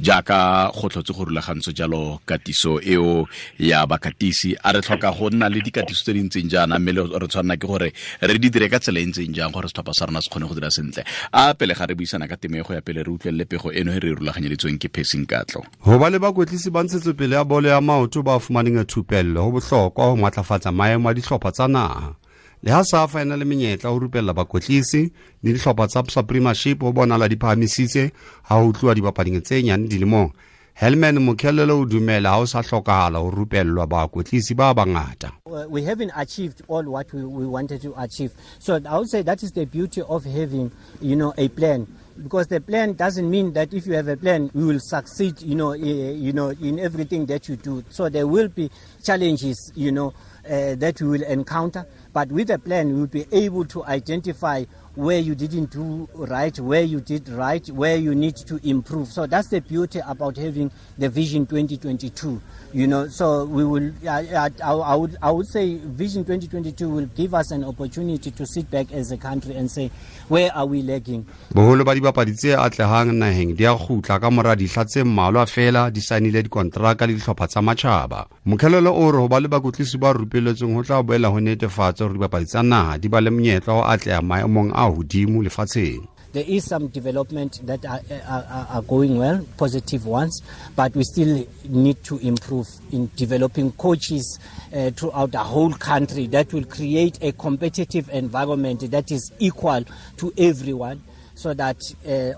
Jaaka go tlhotse go rulagantswe jalo katiso eo ya bakatisi, a re tlhoka go nna le dikatiso tse di ntseng jaana, mme re tshwanela ke gore re di dire ka tsela e ntseng jang gore setlhopha sa rona se kgone go dira sentle? A pele ga re buisana ka temo e go ya pele, re utlwelele pego eno e re e rulaganyeditsweng ke Phesing Katlo. Ho ba le bakwetlisi ba ntshetsopele ya bolo ya maoto ba fumaneng thupello ho bohlokwa ho matlafatsa maemo a dihlopha tsa naha. Le ha SAFA e na le menyetla ho rupella bakwetlisi le dihlopha tsa sa Premiership ho bonala di phahamisitse ha ho tluwa dibapading tse nyane dilemong. Helman Mokhelele o dumela ha ho sa hlokahala ho rupellwa bakwetlisi ba bangata. We haven't achieved all what we wanted to achieve. So I would say that is the beauty of having a plan. Because the plan doesn't mean that if you have a plan, you will succeed in everything that you do. So there will be challenges that you will encounter. But with a plan, you will be able to identify where you didn't do right, where you did right, where you need to improve. So that's the beauty about having the Vision 2022. So we will, I would say Vision 2022 will give us an opportunity to sit back as a country and say, where are we lacking? Boholo ba dibapadi tse atlehang naheng di a kgutla ka mora dihla tse mmalwa feela di saenile dikonteraka le dihlopha tsa matjhaba. Mokhelele o re ho ba le bakwetlisi ba rupelletsweng ho tla boela ho netefatsa hore dibapadi tsa naha di ba le monyetla wa ho atleha maemong a hodimo lefatsheng. There is some development that are going well, positive ones, but we still need to improve in developing coaches throughout the whole country that will create a competitive environment that is equal to everyone, so that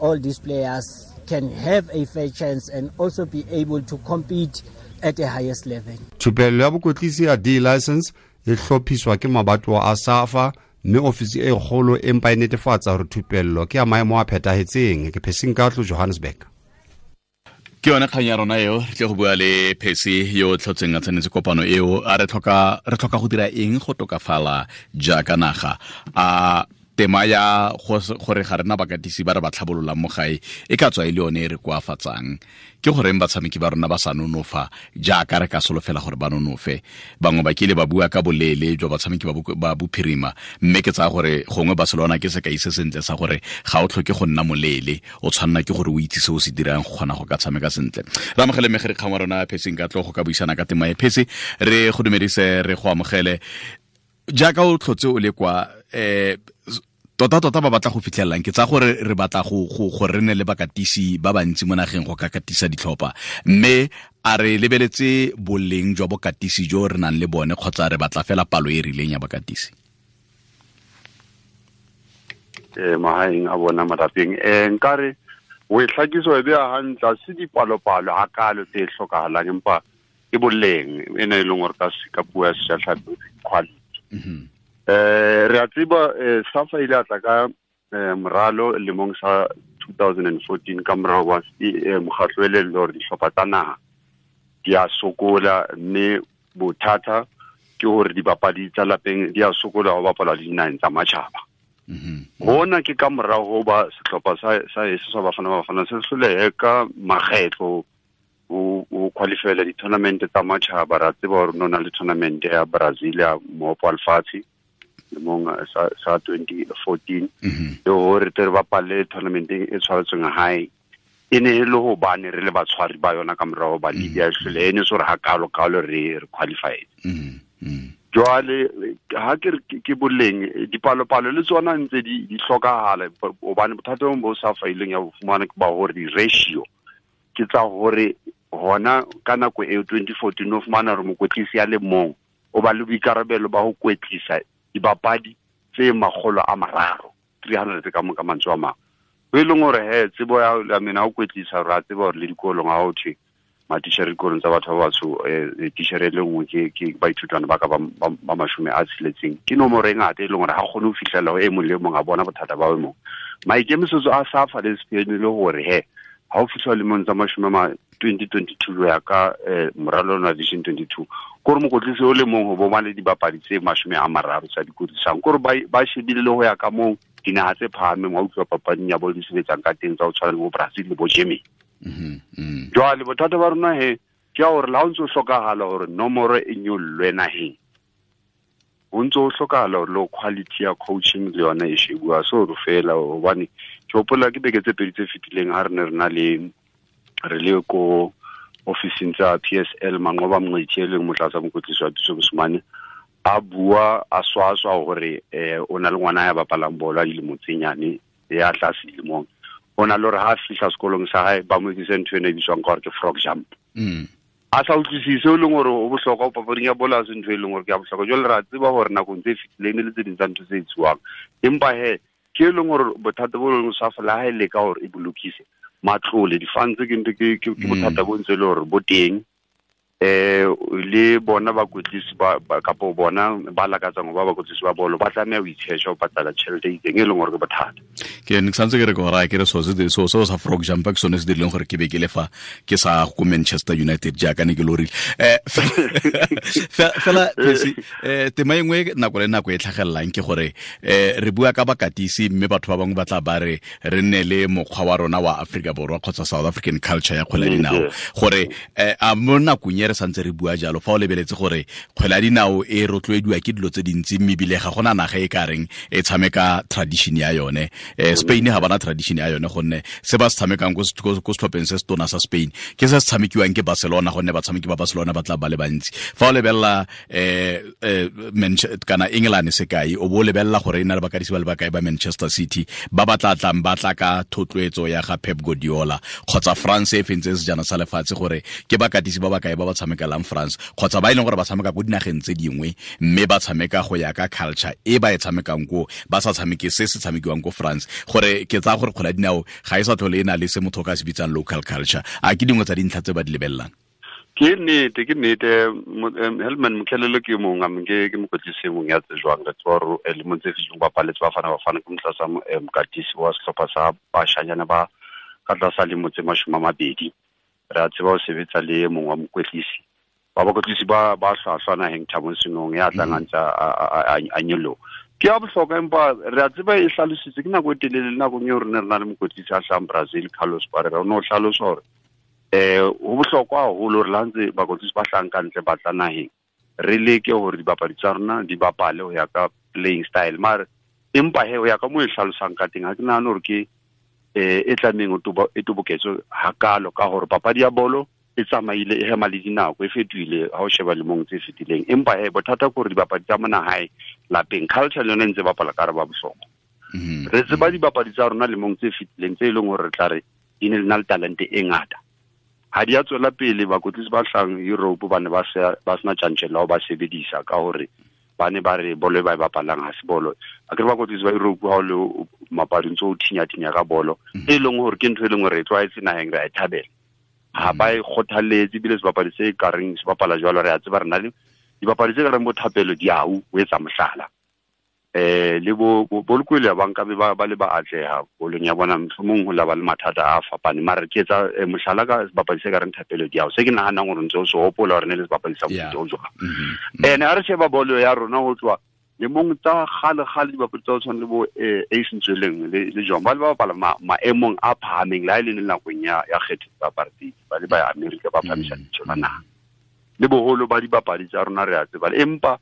all these players can have a fair chance and also be able to compete at the highest level. Thupello ya bokwetlisi ya D license e hlophiswa ke mabatowa a SAFA, mme ofisi e kgolo empa e netefatsa hore thupello ke ya maemo a phethahetseng. Ke Phesing Katlo, Johannesburg. Ke yone kgang ya rona eo. Re tle go bua le Phesi yo o tlhotseng a tsenetse kopano eo. A re tlhoka go dira eng go tokafala jaaka naga? A tema ya gore ga rena bakatisi ba re ba tlhabololang mo gae e ka tswa e le yone e re koafatsang? Ke goreng batshameki ba rona ba sa nonofa jaaka re ka solofela gore ba nonofe? Bangwe ba kile ba bua ka boleele jwa batshameki ba bophirima, mme ke tsaya gore gongwe Barcelona ke sekai se sentle sa gore ga o tlhoke go nna moleele, o tshwanela ke gore o itse se o se dirang go kgona go ka tshameka sentle. Re amogele megere kgang wa rona Pheseng ka tlo go ka buisana ka tema e. Phese, re go dumedise, re go amogele. Jaaka o tlhotse o le kwa, tota tota ba batla go fitlhelelang, ke tsa gore re batla go re ne le bakatisi ba bantsi mo nageng go ka katisa ditlhopha, mme a re lebeletse boleng jwa bokatisi jo re nang le bone, kgotsa re batla fela palo e rileng ya bakatisi? Mahaeng a bona malapeng, nkare o e hlakiso e beya hantle. Ha se dipalopalo hakalo tse hlokahalang, empa ke boleng ena e leng hore ka puo ya sejatlhapi, quality. Re a tseba, SAFA ile a tla ka moralo lemong sa 2014 ka morao wa mokgatlo e leng hore dihlopha tsa naha di a sokola, mme bothata ke hore dibapadi tsa lapeng di a sokola ho bapala le dinaheng tsa matjhaba. Hona ke ka morao ho ba sehlopha sa heso sa Bafana Bafana se hlolehe ka makgetlo ho qualifyela di-tournament tsa matjhaba. Ra tseba hore no na le tournament ya Brazil ya mohope wa lefatshe lemong sa 2014, le hore tle re bapalle tournamenteng e tshwaretsweng hae. E ne e le hobane re le batshwari ba yona ka morao ba Libya e hlole, e ne se hore ha kalo kalo re qualified. Jwale ha ke re ke boleng, dipalopalo le tsona ntse di hlokahala, hobane bothata bo sa faileng ya bo fumana ke ba hore di-ratio ke tsa hore hona ka nako eo 2014 o fumana hore mokwetlisi ya le mong o ba le boikarabelo ba ho kwetlisa dibapadi tse 300, 300 ka mantswe a mang, ho e leng hore he tsebo ya mena ho kwetlisa, re a tseba hore le dikolong ha ho thwe matitjhere dikolong tsa batho ba batsho, titjhere e le nngwe ke baithutwana ba ka ba 60, ke nomoro e ngata e leng hore ha kgone ho fihlela ho e mong le e mong a bona bothata ba e mong. Maikemisetso a SAFA le SPN le hore he ha o fitlha lemong tsa mashome ma 2022 ya ka moralo wa Vision 22, kore mokwetlisi o le mong ho bo ba le dibapadi tse 30 tsa di kwetlisang, kore ba shebile le ho ya ka moo dinaha tse phahameng wa utlwa papading ya bolo di sebetsang ka teng, tsa ho tshwana le bo Brazil le bo Germany. Jwale bothata ba rona he ke ya hore le ha o ntso hlokahala hore nomoro e nyollwe naheng, ho ntso ho hlokahala hore le quality ya coaching le yona e shebuwa. So re fela hobane ke hopola ke beke tse pedi tse fetileng ha re ne re na le Re le ko officing tsa PSL Manqoba Mngqithi e leng motlatsa mokwetlisi wa Pitso Mosimane a bua a swaswa hore o na le ngwana ya bapalang bolo a dilemo tse nyane ya tlase dilemong. O na le hore ha fihla sekolong sa hae ba mo etsise ntho ena e bitswang ka hore ke frog jump. A sa utlwisise o leng hore o bohlokwa papading ya bolo ha se ntho e leng hore ke ya bohlokwa. Jwale re a tseba hore nakong tse fetileng le tse ding tsa ntho tse etsuwang, empa he ke e leng hore bothata bo leng SAFA le ha e leka hore e bolokise matlole di-funds ke ntho ke bothata bo ntse le hore bo teng. Le bona bakwetlisi ba kapo bona ba lakatsang ho ba bakwetlisi ba bolo ba tlameha ho itsheja ho patala tjhelete e itseng e leng hore ke bothata. Ke ne ke santse ke re ke gore ke re so so sa frog jump ke sone se dirileng gore ke be ke le fa ke sa ko Manchester United jaaka ne ke lorile. Fela tema e nngwe nako le nako e tlhagelelang ke gore re bua ka bakatisi mme batho ba bangwe ba tla ba re re nne le mokgwa wa rona wa Afrika Borwa kgotsa South African culture ya kgwele ya dinao gore a mo nakong e re santse re bua jalo fa o lebeletse gore kgwele ya dinao e rotloediwa ke dilo tse dintsi mme ebile ga gona naga e ka reng e tshameka tradition ya yone. Spain ga bana tradition ya yone gonne se ba se tshamekang ko setlhopheng se se tona sa Spain ke se se tshamekiwang ke Barcelona gonne batshameki ba Barcelona ba tla ba le bantsi. Fa o lebelela kana England sekai o bo lebelela gore e na le bakatisi ba le bakae ba Manchester City ba ba tla tlang ba tla ka thotloetso ya ga Pep Guardiola kgotsa France e fentse sejana sa lefatshe gore ke bakatisi ba bakae ba ba tshamekelang France kgotsa ba e leng gore ba tshameka ko dinageng tse dingwe mme ba tshameka go ya ka culture e ba e tshamekang ko ba sa tshameke se se tshamekiwang ko France gore ke tsaya gore kgwele ya dinao ga e sa tlhole e na le se motho o ka se bitsang local culture. A ke dingwe tsa dintlha tse ba di lebelelang? Ke nnete Helman Mkhalele ke mong a ke mokwetlisi mong ya tsejwang re tswa re lemong tse fetileng bapaletse Bafana Bafana ke motlatsa mokatisi wa sehlopha sa bashanyana ba ka tlasa lemo tse 20. Re a tseba ho sebetsa le mong wa mokwetlisi ba bakwetlisi ba hlwahlwa naheng Thabo Senong ya tlang a ntse a nyoloha. Ke ya bohlokwa empa re a tseba e hlalositse ke nako e telele le nakong eo re ne re na le mokwetlisi a hlahang Brazil Carlos Parreira o ne o hlalosa hore ho bohlokwa haholo hore le ha ntse bakwetlisi ba hlahang ka ntle ba tla naheng re leke hore dibapadi tsa rona di bapale ho ya ka playing style mare empa he ho ya ka moo e hlalosang ka teng ha ke nahane hore ke e tlamehang e toboketswe hakalo ka hore papadi ya bolo e tsamaile e hema le dinako e fetohile ha o sheba lemong tse fetileng. Empa he bothata ke hore dibapadi tsa mona hae lapeng culture le yona e ntse bapala ka hare ba bohlokwa. Re tseba dibapadi tsa rona lemong tse fetileng tse e leng hore re tla re di ne le na le talente e ngata. Ha di a tswela pele bakwetlisi ba hlahang Europe ba ne ba sena tjantjello ho ba sebedisa ka hore ba ne ba re bolo e ba e bapalang ha se bolo. A ke re bakwetlisi ba Europe ha o le mapading tse o thinya-thinya ka bolo e leng hore ke ntho e leng hore re tlwaetse naheng re a e thabela. Ha ba e kgothaletse ebile sebapadi se ka reng se bapala jwalo re a tseba re na le dibapadi tse ka reng bo Thapelo Diau o etsa mohlala. Le bo Lekwele ba nkabe ba le ba atleha bolong ya bona mohlomong ho la ba le mathata a fapaneng mare ke etsa mohlala ka sebapadi se ka reng Thapelo Diau se ke nahanang hore ntse o se hopola hore ne le sebapadi sa mofuta o jwang. Ene ha re sheba bolo ya rona ho tloha lemong tsa kgale-kgale dibapadi tsa ho tshwana le bo Ace Ntsweleng le John ba le ba bapala maemong a phahameng le ha e le nakong ya kgetho tsa apartheid ba le ba ya Amerika ba phamisa lebitso la naha. Le boholo ba dibapadi tsa rona re a tseba empa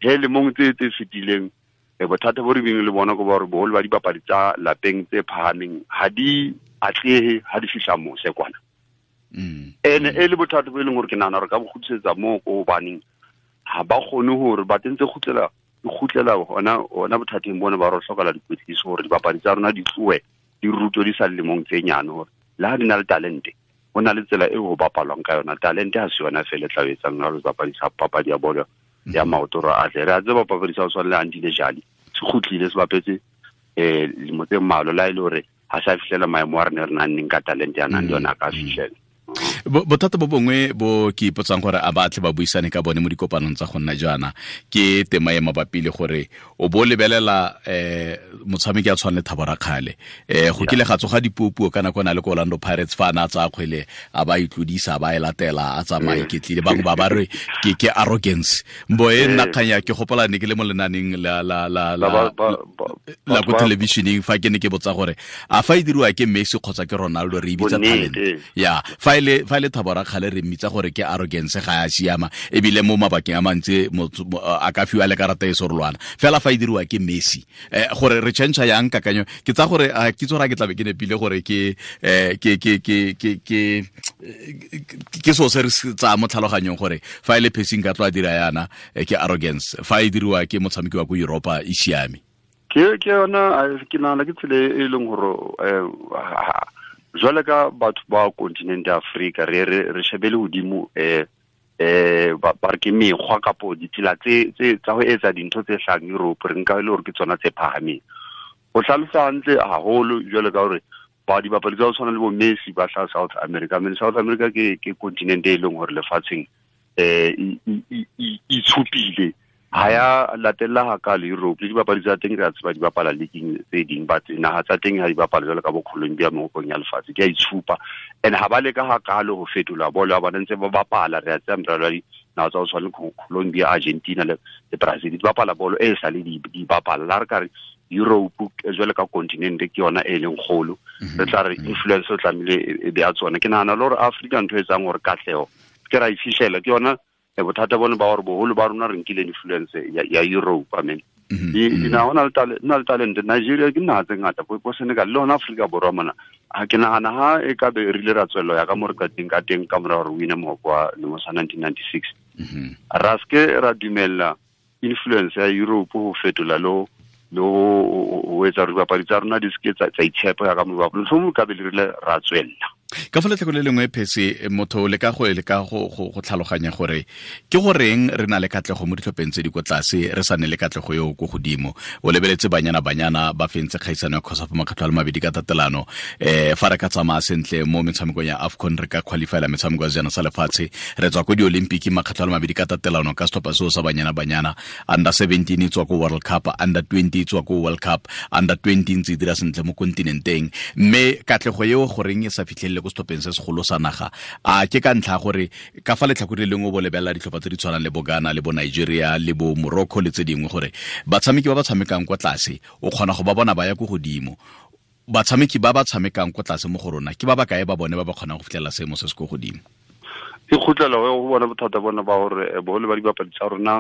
he lemong tse fetileng bothata bo re beng le bona ke ba hore boholo ba dibapadi tsa lapeng tse phahameng ha di atlehe ha di fihla mose kwana. Ene e le bothata bo e leng hore ke nahana hore ka bo kgutlisetsa moo ko hobaneng ha ba kgone hore ba tentse kgutlela hona bothateng bona ba re hloka dikwetliso hore dibapadi tsa rona di tlohe di rutwe di sa le lemong tse nyane hore le ha di na le talente ho na le tsela eo ho bapalwang ka yona. Talente ha se yona feela e tla etsang hore sebapadi sa papadi ya bolo ya maoto hore atle. Re a tseba papadi sa ho tshwana le Andile Jali se kgutlile se bapetse lemo tse mmalwa le ha e le hore ha sa fihlela maemo a re ne re nang ka talente ya nang le yona a ka fihlela. Bothata bo bongwe bo ke ipotsang gore a batle ba buisane ka bone mo dikopanong tsa go nna jaana ke tema e mabapi le gore o bo lebelela motshameki a tshwana le Thabo Rakhale go kile ga tsoga dipuopuo ka nako na le ko Orlando Pirates fa ana tsa kgwele a ba itlodisa ba e latela a tsamaya iketlile bangwe ba ba re ke arrogance mbo e nna kganya ke gopola ne ke le mo lenaneng la la la la la ko televisioneng fa ke ne ke botsa gore a fa e diriwa ke Messi kgotsa ke Ronaldo re e bitsa talent ya fa ile e le Thabo Rakgale re mmitsa gore ke arrogance, ga ya siama, ebile mo mabakeng a mantsi a ka fiwa le karata e sorolwana fela fa e diriwa ke Messi. Gore re change yang kakanyo, ke tsa gore ke tsora ke tlabe ke nepile gore ke ke ke ke ke ke ke so se re tsa mo tlhaloganyong gore fa e le Percy nka tlo a dira yana ke arrogance, fa e diriwa ke motshameki wa ko Europa e siame. Ke yona ke nahana ke tsela e leng gore jwale ka batho ba continent ya Afrika re re shebele hodimo ba re ke mekgwa kapo ditsela tse tsa ho etsa dintho tse hlahang Europe, re nka e le hore ke tsona tse phahameng. O hlalosa hantle haholo jwale ka hore ba dibapadi tsa ho tshwana le bo Messi ba hlaha South America. I mean, South America ke continent e leng hore lefatsheng itshupile, ha ya latella hakalo Europe. Le dibapadi tsa teng re a tseba di bapala leagueng tse ding, but naha tsa teng ha di bapala jwalo ka bo Colombia mehopong ya lefatshe, di a itshupa. And ha ba leka hakalo ho fetola bolo ya bona, ntse ba bapala. Re a tseba meralo ya dinaha tsa ho tshwana le Colombia, Argentina le Brazil, di bapala bolo e sa le di bapala. La re ka re Europe jwale ka continent ke yona e leng kgolo, re tla re influence o tlamehile e be ya tsona. Ke nahana le hore Africa ntho e etsang hore katleho ke ra e fihlela ke yona bothata bone ba hore boholo ba rona re nkile influence ya Europe. I mean, dinaha ho na le talent. Nigeria ke naha tse ngata, bo Senegal le hona Afrika Borwa mona. Ha ke nahana ha e ka be re ile ra tswella ya ka mo re qeteng ka teng ka mora hore win mohope wa lemo sa 1996, ra ske ra dumella influence ya Europe ho fetola lo ho etsa hore dibapadi tsa rona di seke tsa itshepa ya ka mo bapala. Mohlomong ka be le rile ra tswella. Ka fa letlhako le lengwe Percy, motho le ka go go tlhaloganya gore ke goreng re na le katlego mo ditlhopheng tse di ko tlase, re sa ne le katlego eo ko godimo. O lebeletse Banyana Banyana ba fentse kgaisano ya COSAFA makgetlho a le mabedi ka tatelano. Fa re ka tsamaya sentle mo metshamekong ya AFCON, re ka qualifyela metshameko ya sejana sa lefatshe, re tswa ko di-Olympic makgetlho a le mabedi ka tatelano ka setlhopha seo sa Banyana Banyana. Under 17 e tswa ko World Cup, under 20 e tswa ko World Cup, under 20 ntse e dira sentle mo kontinenteng. Mme katlego eo goreng e sa fitlhelele ko setlhopheng se segolo sa naga, a ke ka ntlha gore ka fa letlhakore le lengwe bo lebelela ditlhopha tse di tshwanang le bo Ghana le bo Nigeria le bo Morocco le tse dingwe, gore batshameki ba ba tshamekang kwa tlase o kgona go ba bona ba ya ko godimo. Batshameki ba ba tshamekang kwa tlase mo go rona ke ba ba kae ba bone ba ba kgonang go fitlhelela seemo se se ko godimo? E kgutlela go bona bothata bona ba hore boholo ba dibapadi tsa rona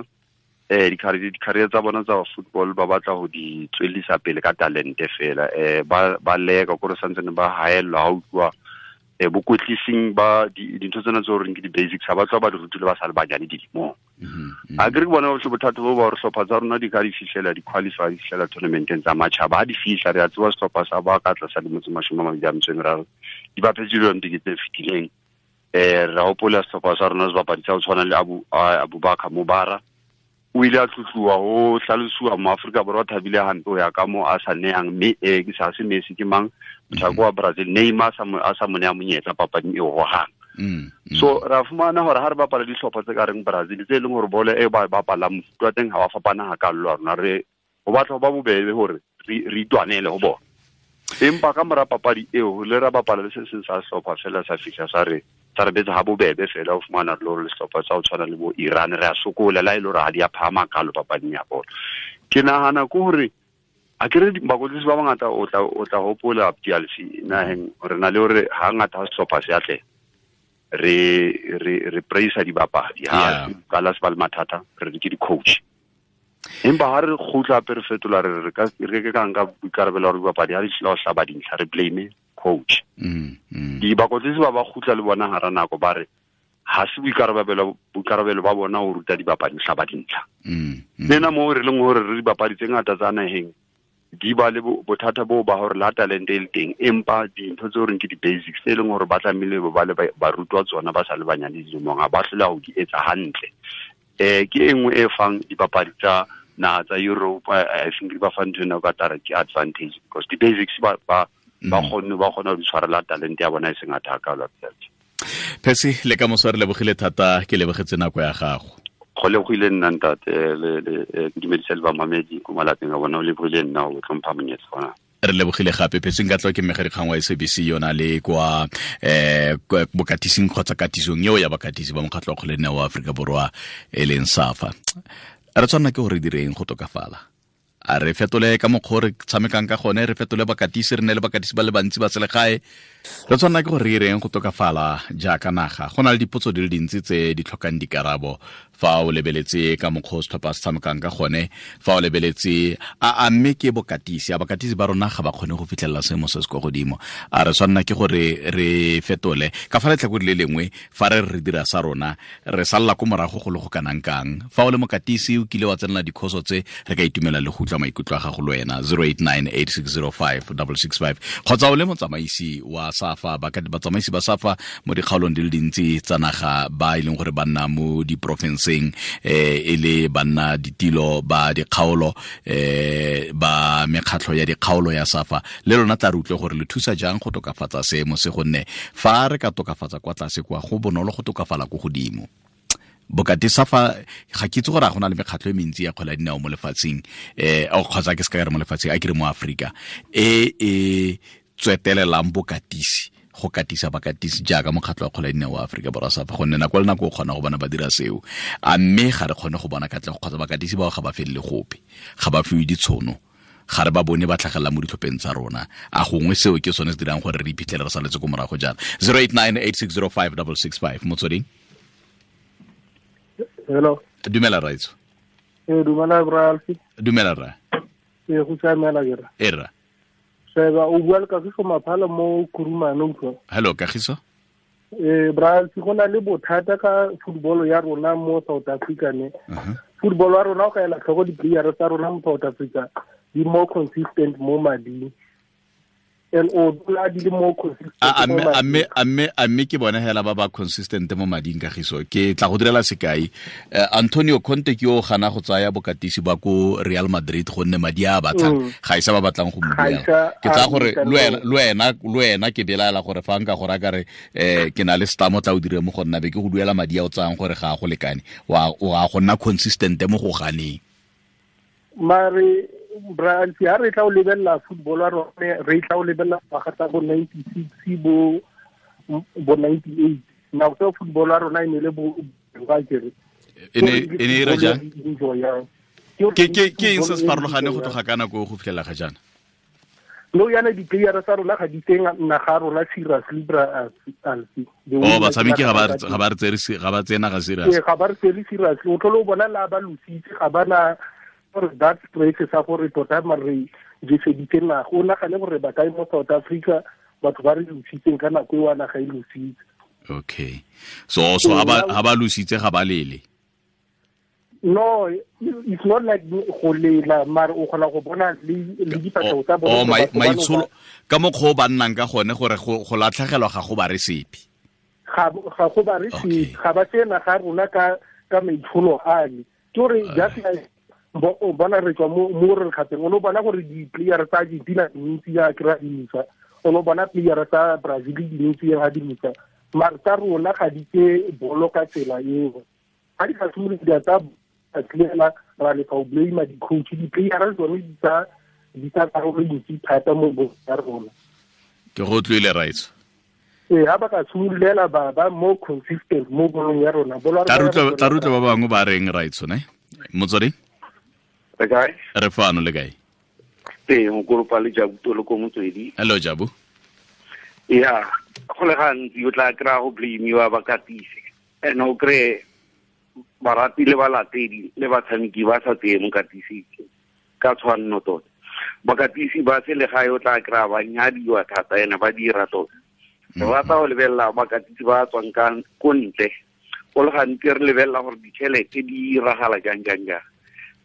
di-career tsa bona tsa football ba batla ho di tswellisa pele ka talente fela. Ba leka kore santsane ba haellwa ha utlwa bokwetlising ba dintho tsena tse horeng ke di-basics, ha ba tloha ba di rutile ba sa le banyane dilemong. A ke re ke bona bothata bo ba hore hlopha tsa rona di ka di fihlela di-qualify, di fihlela tournamenteng tsa matjhaba. Ha di fihla, re a tseba sehlopha sa ba ka tlasa lemo tse 23 di bapetse di-Olympic tse fetileng. Re hopola sehlopha sa rona sebapadi sa ho tshwana le Abubakar Mubara, o ile a tlotluwa ho hlalosiwa mo Afrika Borwa thabile hampe ho ya ka mo a sa nehang mme ke sa se Messi ke mang mothako wa Brazil Neymar a sa mo neha monyetla papading eo hohang. So ra fumana hore ha re bapala dihlopha tse ka reng Brazil tse leng hore bolo e ba bapalang mofuta wa teng ha wa fapana hakalo la rona, re ho batla ho ba bobebe hore re itwanele ho bona. Empa ka mora papadi eo le ra bapala le se seng sa sehlopha fela sa fihla sa re betsa ha bobebe fela. O fumana le hore sehlopha sa ho tshwana le bo Iran re a sokola la e le hore ha di a phahama kalo papading ya bolo. Ke nahana ke hore a ke re bakwetlisi ba bangata o tla hopola Abdialfi naheng re na le hore hangata ha sehlopha se atleha re praise dibapadi, ha qala se ba le mathata re re ke di-coach. Empa ha re kgutla hape re fetola re ka re ka nka boikarabelo hore dibapadi ha di hlile ho hlaba dintlha re blame coach. Dibakwetlisi ba ba kgutla le bona hara nako ba re ha se boikarabelo ba bona ho ruta dibapadi ho hlaba dintlha. Lena moo re leng hore re dibapadi tse ngata tsa naheng di ba le bothata boo ba hore la talente e le teng, empa dintho tse horeng ke di-basics tse leng hore ba tlamehile ba le ba rutwa tsona ba sa le banyane dilemong, ha ba hlola ho di etsa hantle. Ke e nngwe e fang dipapadi tsa naha tsa Europe, I think di ba fa ntho ena o ka tla re ke advantage because di-basics ba kgonne ba kgona ho di tshwarela talente ya bona e seng ngata hakalo. Percy, le ka moso re lebogile thata, ke lebogetse nako ya gago. Go lebogile nna ntate, le ke dumedisa le bamamedi ko malapeng a bona, o lebogile nna o tlhompha monyetla ona. Re lebogile gape Percy Nkatlo, ke mmegadikgang wa SABC yona le kwa bokatising kgotsa katisong eo ya bakatisi ba mokgatlho wa kgwele wa Aforika Borwa e leng SAFA. Re tshwanela ke gore direng go tokafala. A re fetole ka mokgwa re tshamekang ka gone, re fetole bakatisi, re ne le bakatisi ba le bantsi ba selegae. Re tshwanela ke gore re ireng go tokafala jaaka naga. Go na le dipotso di le dintsi tse di tlhokang dikarabo fa o lebeletse ka mokgwa o setlhopha se tshamekang ka gone, fa o lebeletse a mme ke bokatisi, a bakatisi ba rona ga ba kgone go fitlhelela seemo se se kwa godimo. A re tshwanela ke gore re fetole ka fa letlhakore le lengwe, fa re re dira sa rona re salla ko morago go le go kanang kang. Fa o le mokatisi o kile wa tsenela dikhoso tse, re ka itumela le go utlwa maikutlo a gago le wena 0898605665, kgotsa o le motsamaisi wa SAFA, batsamaisi ba SAFA mo dikgaolong di le dintsi tsa naga ba e leng gore ba nna mo diporofenseng, e le banna ditilo ba dikgaolo, ba mekgatlho ya dikgaolo ya SAFA, le lona tla re utlwe gore le thusa jang go tokafatsa seemo se, gonne fa re ka tokafatsa kwa tlase kwa go bonolo go tokafala ko godimo. Bokati SAFA ga ke itse gore a gona le mekgatlho e mentsi ya kgwele ya dinao mo lefatsheng, kgotsa ke se ka re mo lefatsheng, a ke re mo Aforika, e e tswetelelang bokatisi, go katisa bakatisi jaaka mokgatlho wa kgwele ya dinao wa Aforika Borwa SAFA, gonne nako le nako o kgona go bona ba dira seo, a mme ga re kgone go bona katlego, kgotsa bakatisi bao ga ba felele gope, ga ba fiwe ditshono, ga re ba bone ba tlhagelela mo ditlhopheng tsa rona. A gongwe seo ke sone se dirang gore re iphitlhele re saletse ko morago jaana. 0898605665, Motsweding. Hello. Dumela raitso. Dumela bra Alfi. Dumela ra. Go siamela ke ra. E ra. Sheba o bua le Kagiso Maphala mo Kurumane utlwa. Hello Kagiso. Bra Alfi, go na le bothata ka football ya rona mo South Africa ne. Football ya rona o ka ela tlhoko di-player tsa rona mo South Africa di more consistent mo mading. And o dula di le more consistent. A mme ke bone hela ba ba consistent mo mading Kagiso. Ke tla go direla sekai. Antonio Conte ke yo gana go tsaya bokatisi ba ko Real Madrid gonne madi a batlang ga isa ba batlang go mo duela. Ke tsaya gore le wena ke belaela gore fa nka gore a kare ke na le stamo tla o dire mo go nna be ke go duela madi a o tsayang gore ga a go lekane, wa go nna consistent mo go ganeng. Mare Brian, ha re tla o lebella football wa rona, re tla o lebella ngwaga tsa bo 96 bo 98. Nako tseo football wa rona e ne le bo ba kere. E ne e re jang? Ke eng se se farologane go tloga ka nako go fitlhela ga jaana? No yana di-player tsa rona ga di teng naga rona seriously bra Alfi. Oh, batshameki ga ba re tseye naga serious. Ee, ga ba re tsere seriously. O tlhole o bona la ba lositse, ga ba na gore that stress sa gore tota mare jeseditse naga. O nagane gore ba kae mo South Africa batho ba re lositseng ka nako e wa naga e lositse. Okay. So ha ba lositse ga ba lele. No, it's not like go lela, mare o kgona go bona le difatlhego tsa bone. Oh, maitsholo ka mokgwa o ba nnang ka gone gore go latlhegelwa ga go ba re sepe. Ga go ba re sepe, ga ba tseye naga rona ka maitsholo ale. Ke gore just like o bona re tswa mo re kgateng, o no bona gore di-player tsa Argentina dintsi ya kry-a dimisa, o no bona player tsa Brazil dintsi ya dimisa, mare tsa rona ga di tse bolo ka tsela eo. Ga di ka simolola di tsa clear ra le ka o blame di-coach, di-player tsone di tsa karolo e ntsi thata mo bolong ya rona. Ke go utlwile raitso. Ee, ha ba ka simololela ba more consistent mo bolong ya rona. Tla re utlwe ba bangwe ba reng raitso ne? Motswedi? Re kae? Re fano, le kae? Ee, mokoropa le Jabu Tolo ko Motswedi. Hello Jabu. Ya, go le gantsi o tla kry-a go blame-iwa bakatisi. And o kry-e barati le balatedi le batshameki ba sa tseye mokatisi ka tshwanno tota. Bakatisi ba selegae o tla kry-a ba nyadiwa thata ene ba dira tota. Re rata go lebelela bakatisi ba tswang ka ko ntle. Go le gantsi re lebelela gore ditšhelete di iragala jang jang jang.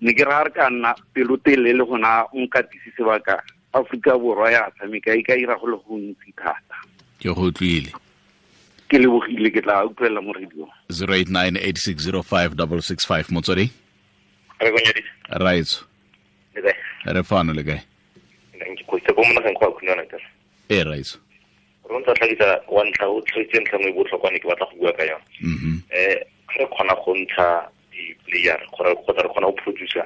Ne ke ra re ka nna pelotelele le gona nkatisi sebaka Aforika Borwa ya tshameka e ka ira go le gontsi thata. Ke go utlwile. Ke lebogile, ke tla utlwelela mo radio. 0898605665, Motswedi. Re go nyadisa. Raitso. Le kae? Re fano, le kae? Ke go itse go mona go a khunana ka. E raitso. Re ntse tlhagisa wa ntlha o tlhagitse ntlha nngwe e botlhokwa ne ke batla go bua ka yone. Re kgona go ntsha di-player kgotsa re kgona go producer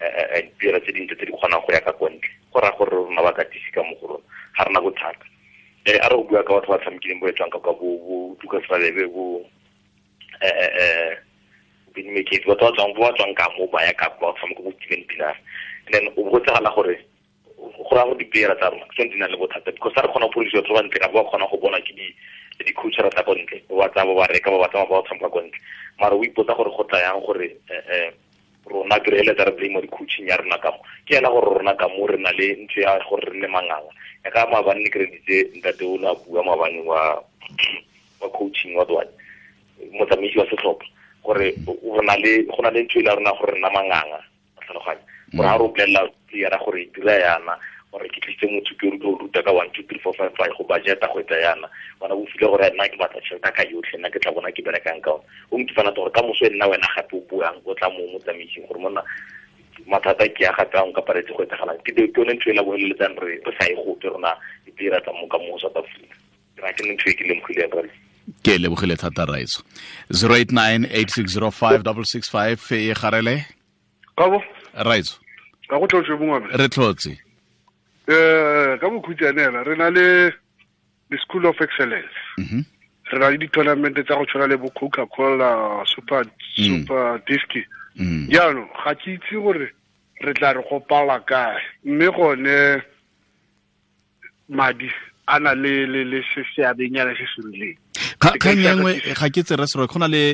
di-player tse dintle tse di kgonang go ya ka kwa ntle. Go raya gore rona bakatisi ka mo go rona ga rena bothata. A re go bua ka batho ba tshamekileng bo etswang ka kwa bo Lucas Radebe, bo Benny McCarthy, batho ba tswang ka mo ba ya ka kwa ba tshameka bo Steven Pienaar. And then o botsagala gore go ra go di-player tsa rona ke tsone di na le bothata, because ga re kgona go produce batho ba ntle ka ba kgona go bona ke di-coach tsa ko ntle, ba ba tsaya ba ba reka, ba ba tsamaya ba tshameka ko ntle. Mara o ipotsa gore go tla yang gore rona ke re eletsa re blame di-coaching ya rona ka mo. Ke ena gore rona ka mo re na le ntho ya gore re nne manganga. Ya ka maabane ne ke reditse ntate o ne a bua maabane wa coaching wa Dwane, motsamaisi wa setlhopha, gore go na le ntho e le ya rona gore re nna manganga, tlhaloganya. Gore ha re o bolelela player gore dira yana, gore ke tlisitse motho ke o ruta ka 1 2 3 4 5 5 go budgeta go etsa yana, bona o file gore nna ke batla tšhelete ka yotlhe, nna ke tla bona ke berekang ka ona. O nkifana gore ka moso e nna wena gape o buang o tla mo motsamaising gore monna mathata ke ya gape a nka paretse go etsagalang. Ke yone ntho e la boeleletsang re sa e gope rona di-player tsa mo ka mo South Africa. Ke ra ke ntho e ke lemogileng rale. Ke lebogile thata Raitso. 089 8605 665 e garele. Kabo Raitso. Ka go tlotse bongwe. Re tlotse. Ka bokhutshwanela re na le the School of Excellence. Re na le di-tournament tsa go tshwana le bo Coca-Cola Super Disc. Jaanong ga ke itse gore re tla re go pala kae, mme gone madi a na le seabenyana se se rileng. Kgang e nngwe ga ke tsere serwe, go na le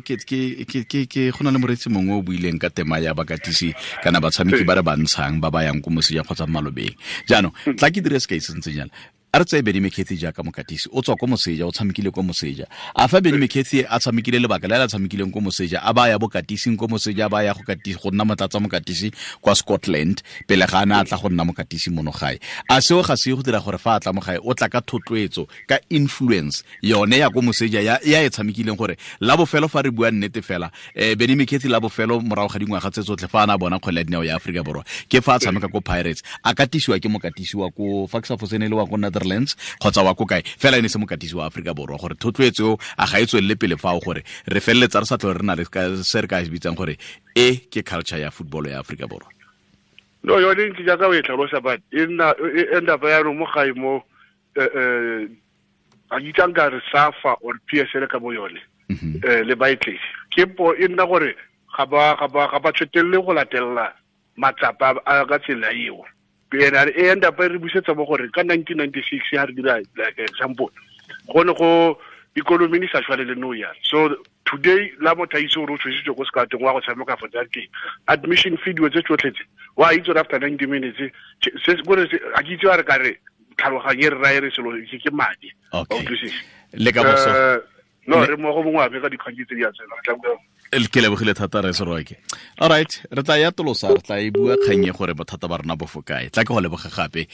ke go na le moreetsi mongwe o buileng ka tema ya bakatisi kana batshameki ba re ba ntshang ba ba yang ko moseja kgotsa malobeng. Jaanong tla ke dire sekai se ntseng jana. A re tseye Benny McCarthy jaaka mokatisi, o tswa ko moseja, o tshamekile ko moseja. A fa Benny McCarthy a tshamekile lebaka le a tshamekileng ko moseja, a ba ya bokatising ko moseja, a ba ya go katisi go nna motlatsa mokatisi kwa Scotland pele ga a ne a tla go nna mokatisi mono gae. A seo ga se go dira gore fa a tla mo gae o tla ka thotloetso, ka influence yone ya ko moseja ya e tshamekileng, gore la bofelo fa re bua nnete fela, Benny McCarthy la bofelo morago ga dingwaga tse tsotlhe fa a na bona kgwele ya dinao ya Aforika Borwa ke fa a tshameka ko Pirates, a katisiwa ke mokatisi wa ko fa ke sa fosene le wa ko Netherlands kgotsa wa ko kae, fela ene se mokatisi wa Aforika Borwa, gore thotloetso a ga e tswelele pele fao gore re feleletsa re sa tlhole re na le se re ka se bitsang gore e ke culture ya football ya Aforika Borwa. No, yone ntse jaaka o e tlhalosa, but e nna e end up yaanong mo gae mo a itsang ka re SAFA or PSL ka bo yone le baetledi ke po e nna gore ga ba tswetelele go latelela matsapa a ka tsela eo. Ena e end up re busetsa mo gore ka 1996 ha re dira like example, go ne go economy ni sa tshwane le no ya. So today la motho a itse gore o tshwesitswe ko sekatong wa go tshameka for that game, admission fee dilo tse tsotlhe tse wa itse gore after 90 minutes se gore a ke itse wa re ka re tlhaloganye re raye re selo ke madi. Le ka boso no re mo go bongwe ape ka dikgang tse di a tsena tla bua. Ke lebogile thata re Seroke. All right, re tla ya tolosa, re tla e bua kgang e gore bothata ba rona bo fo kae. Tla ke go leboga gape.